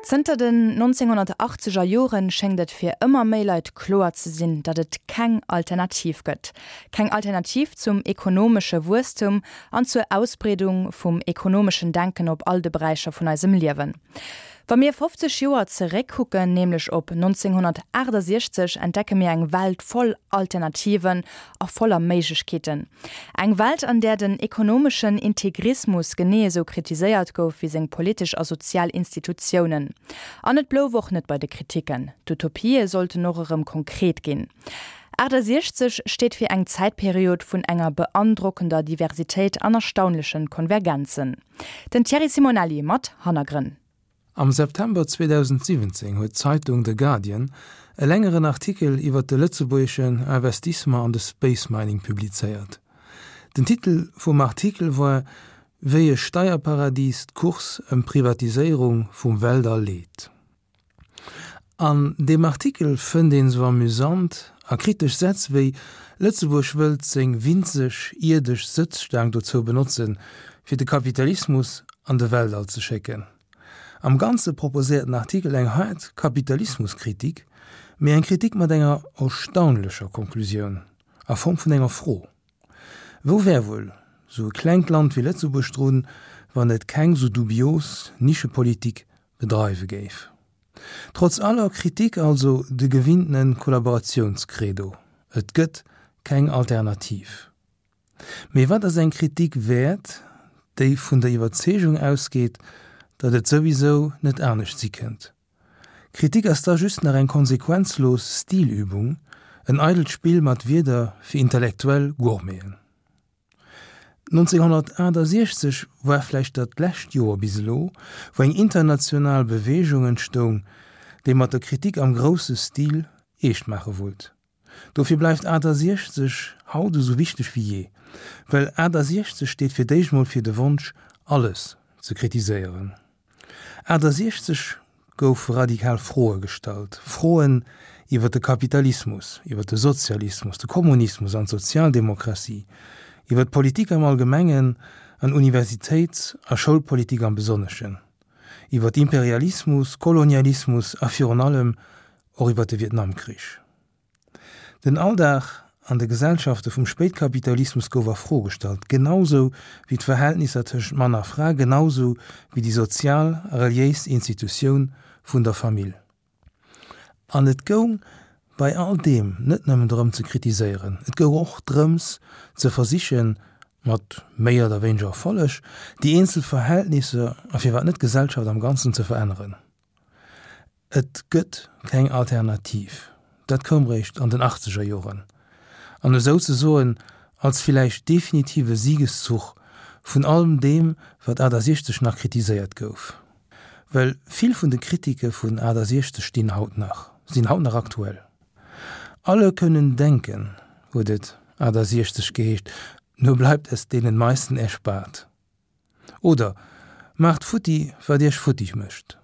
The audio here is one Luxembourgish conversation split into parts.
Zënter den 1980er Joren schéngt et fir ëmmer méi Leit kloer ze sinn, datt et keng Alternativ gëtt. Keng Alternativ zum ekonomesche Wuesstum an zur Ausbreedung vum ekonomeschen Denken op all de Beräicher vun eisem Liewen. Wa mir 50 Joer zeréckkucken, nämlech op 1968, entdecke mir eng Welt voll Alternativen a voller Méiglechkeeten. Eng Welt, an där den ekonomeschen Integrismus genee esou kritiséiert gouf wéi seng politesch a sozial Institutiounen. An et blouf och net bei de Kritiken. D'Utopië sollten och erëm konkret ginn. 68 steet fir eng Zäitperiod vun enger beandrockender Diversitéit an erstaunlechen Konvergenzen. Den Thierry Simonelli mat Hannergrënn. Am September 2017 huet d'Zeitung The Guardian e längeren Artikel iwwer de lëtzebuergeschen Investissement an de Space Mining publizéiert. Den Titel vum Artikel war Wéi e Steierparadis d'Course ëm d'Privatiséierung vum Weltall leet. An deem Artikel fënnt een sou amüsant a kritesch Sätz wéi Lëtzebuerg wëllt seng winzeg ierdesch Sëtzstaang dozou benotzen, fir de Kapitalismus an de Weltall ze schécken. Am Ganze proposéiert den Artikel eng haart Kapitalismuskritik, mee eng Kritik mat enger erstaunlecher Konklusioun a Form vun enger Fro, Wou wär wuel sou e klengt Land wéi Lëtzebuerg drun, wann et keng sou dubios Nischepolitik bedreiwe géif. Trotz aller Kritik also de gewinntene Kollaboratiounscredo, Et gëtt keng Alternativ. Mee wat ass eng Kritik wäert, déi vun der Iwwerzeegung ausgeet, datt et souwisou net anescht si kënnt? Kritik ass da just nach eng konsequenzlos Stilübung, en eidelt Spill mat Wierder fir intellektuell Gourmeten. 1968 war vläicht dat lescht Joer bis elo, wou eng international Beweegung entstoung, déi mat der Kritik am grousse Stil eescht maache wollt. Dofir bleift 68 haut esou wichteg wéi jee, well 68 steet fir d'éischt mol fir de Wonsch, alles ze kritiséieren. 68 goufe radikal Froe gestallt, Froen iwwer de Kapitalismus, iwwer de Sozialismus, de Kommunismus an d'Sozialdemokratie, iwwer d'Politik am Allgemengen an Universitéits a Schoulpolitik am Besonneschen, iwwer Imperialismus, Kolonialismus a virun allem och iwwer de Vietnamkrich. Den Alldag an de Gesellschafte vum Spéitkapitalismus gouf a Fro gestallt, genausou wéi d'Verhältnisser tëschent Mann a Fra, genausou wéi déi sozial a reliéis Institutioun vun der Famill. An et goung bei all deem net nëmmen drëm ze kritiséieren, et goung och drëms ze versichen, mat méi oder wéineger Erfolleg, déi eenzel Verhältnisser a firwat net d'Gesellschaft am Ganzen ze veränneren. Et gëtt keng Alternativ. Dat koum réischt an den achtzeger Joren, an esou ze soen als villäicht definitive Siegeszuch vun allem deem, wat 68 nach kritiséiert gouf. Well vill vun de Kritike vun 68 stinn haut nach, sinn haut nach aktuell. Alle können denken, huet et 68 geheescht, nur bleibt es denen meisten erspart. Oder, Maacht futti, wat Iech futtig mécht.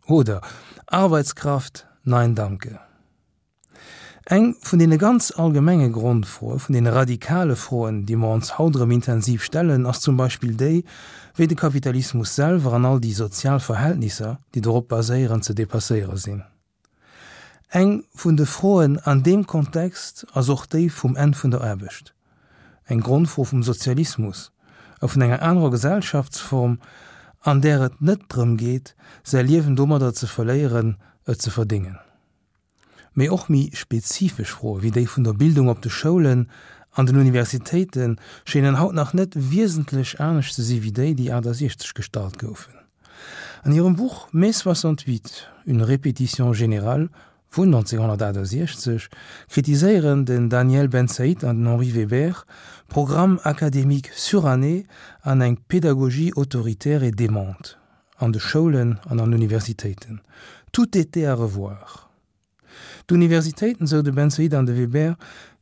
Oder, Arbeitskraft, nein danke. Eng vun deene ganz allgemenge Grondfroe, vun deene radikale Froen, déi mer ons haut erëm intensiv stellen, ass zum Beispill déi, wéi de Kapitalismus selwer an all déi sozial Verhältnisser, déi dorop baséieren, ze dépasséiere sinn. Eng vun de Froen an deem Kontext ass och déi vum Enn vun der Aarbecht, eng Grondfro vum Sozialismus a vun enger anerer Gesellschaftsform, an där et net drëm geet, säi Liewen domadder ze verléieren, et ze verdéngen. Mee och méi spezifesch Froe wéi déi vun der Bildung op de Schoulen an den Universitéite schéinen haut nach net wiesentlech anescht ze si wéi déi, déi 68 gestallt goufen. An hirem Buch Mai 68, une répétition générale vun 1968 kritiséieren den Daniel Bensaïd an den Henri Weber Programmes académiques surannés an eng Pédagogie autoritaire et démente an de Schoulen an an Universitéiten. Tout était à revoir. D'Universitéiten, sou de Bensaïd an de Weber,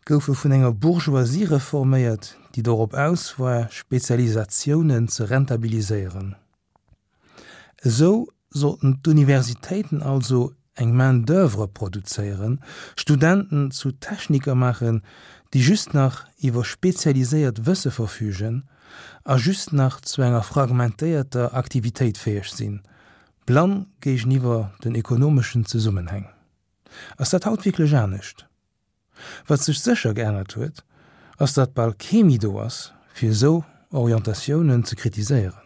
goufe vun enger Bourgeoisie reforméiert, déi dorop aus war, Spezialisatiounen ze rentabiliséieren. Esou sollten d'Universitéiten also eng Main d'oeuvre produzéieren, Studenten zu Techniker maachen, déi just nach iwwer spezialiséiert Wësse verfügen a just nach zu enger fragmentéierter Aktivitéit fäeg sinn. Blann géigeniwwer den ekonomeschen Zesummenhäng. Ass dat haut wierklech anescht? Wat sech sécher geännert huet, ass datt bal kee méi do ass, fir esou Orientatiounen ze kritiséieren.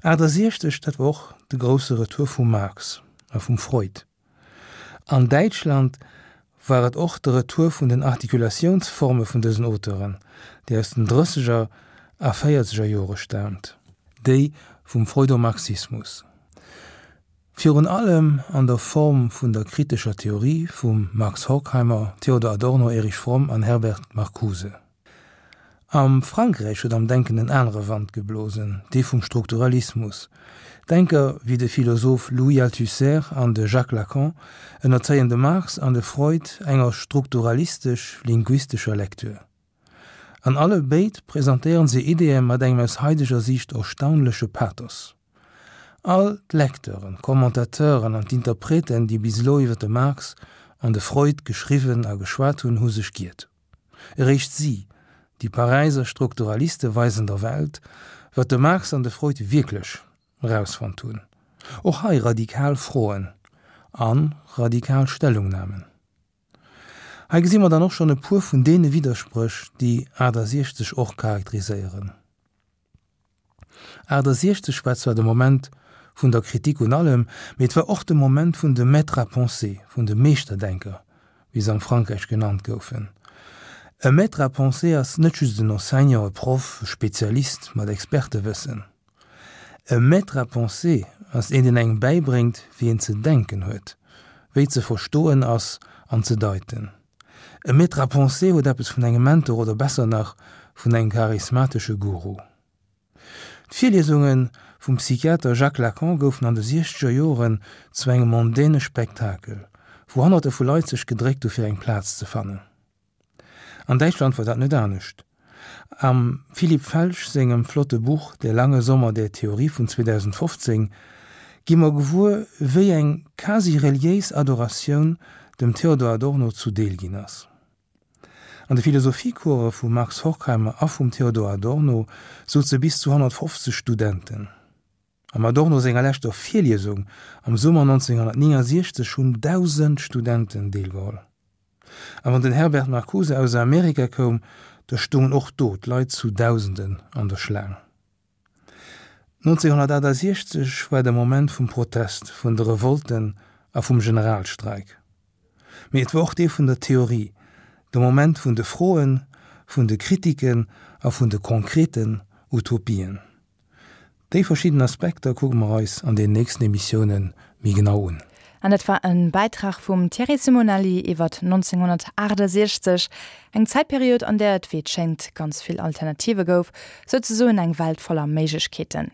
68, dat war och de grousse Retour vum Marx a vum Freud. An Däitschland war et och de Retour vun den Artikulatiounsforme vun dësen Auteuren, déi aus den drësseger a véierzeger Jore staamt, déi vum Freudomarxismus. Virun allem an der Form vun der kritescher Theorie vum Max Horkheimer, Theodor Adorno, Erich Fromm an Herbert Marcuse. Am Frankräich huet am Denken en anere Wand geblosen, dee vum Strukturalismus. Denker wéi de Philosoph Louis Althusser an de Jacques Lacan ënnerzéien de Marx an de Freud enger strukturalistesch-linguistescher Lecture. An alle béid presentéieren se Ideeë mat engem aus haideger Siicht erstaunleche Pathos. All d'Lecteuren, d'Commentateuren an d'Interpreten, déi bis elo iwwer de Marx an de Freud geschriwwen a geschwat hunn, hu sech giert. Eréischt si, déi Paräiser Strukturaliste weisen der Welt, wat de Marx an de Freud wierklech erausfonnt hunn. Och hei radikal Froen a radikal Stellungnamen. Hei gesi mer dann och schonn e puer vun deene Widderspréch, déi 68 och charakteriséieren. 68 war zwar de Moment vun der Kritik un allem, mee et war och de Moment vun de Maîtres à penser, vun de Meeschterdenker, wéi se am Frankräich genannt goufen. E Maître à penser ass net just en Enseignant, e Proff, e Spezialist mat Expertewëssen. E Maître à penser ass een, deen engem bäibréngt, wéi een ze denken huet, wéi ze verstoen ass an ze deiten. E Maître à penser huet eppes vun engem Mentor oder besser nach vun engem charismatesche Guru. D'Virliesunge vum Psychiater Jacques Lacan goufen an de siechzeger Joren zu engem mondäne Spektakel, wou Honnerte vu Leit sech gedréckt hu fir eng Plaz ze fannen. An Däitschland war dat net anescht. Am Philipp Felsch sengem flotte Buch Der lange Sommer der Theorie vun 2015 gi mer gewuer, wéi eng quasi reliéis Adoratioun dem Theodor Adorno zu Deel ginn ass. An de Philosophiecourse vum Max Horkheimer a vum Theodor Adorno souze bis zu 150 Studenten. Am Adorno senger leschter Virliesung am Summer 1969 hunn 1.000 Studenten deelgeholl. A wann den Herbert Marcuse aus Amerika koum, da stoungen och do d'Leit zu Dausenden an der Schlaang. 1968 war de Moment vum Protest, vun de Revolten a vum Generalstreik. Mee et war och dee vun der Theorie, de Moment vun de Froen, vun de Kritiken a vun de konkreten Utopien. Déi verschidden Aspekter kucke mer eis an den nächsten Emissioune méi genau un. An dat war e Bäitrag vum Thierry Simonelli iwwert 1968, eng Zäitperiod, an där et, wéi et schéngt, ganz vill Alternative gouf, souzesoen eng Welt voller Méiglechkeeten.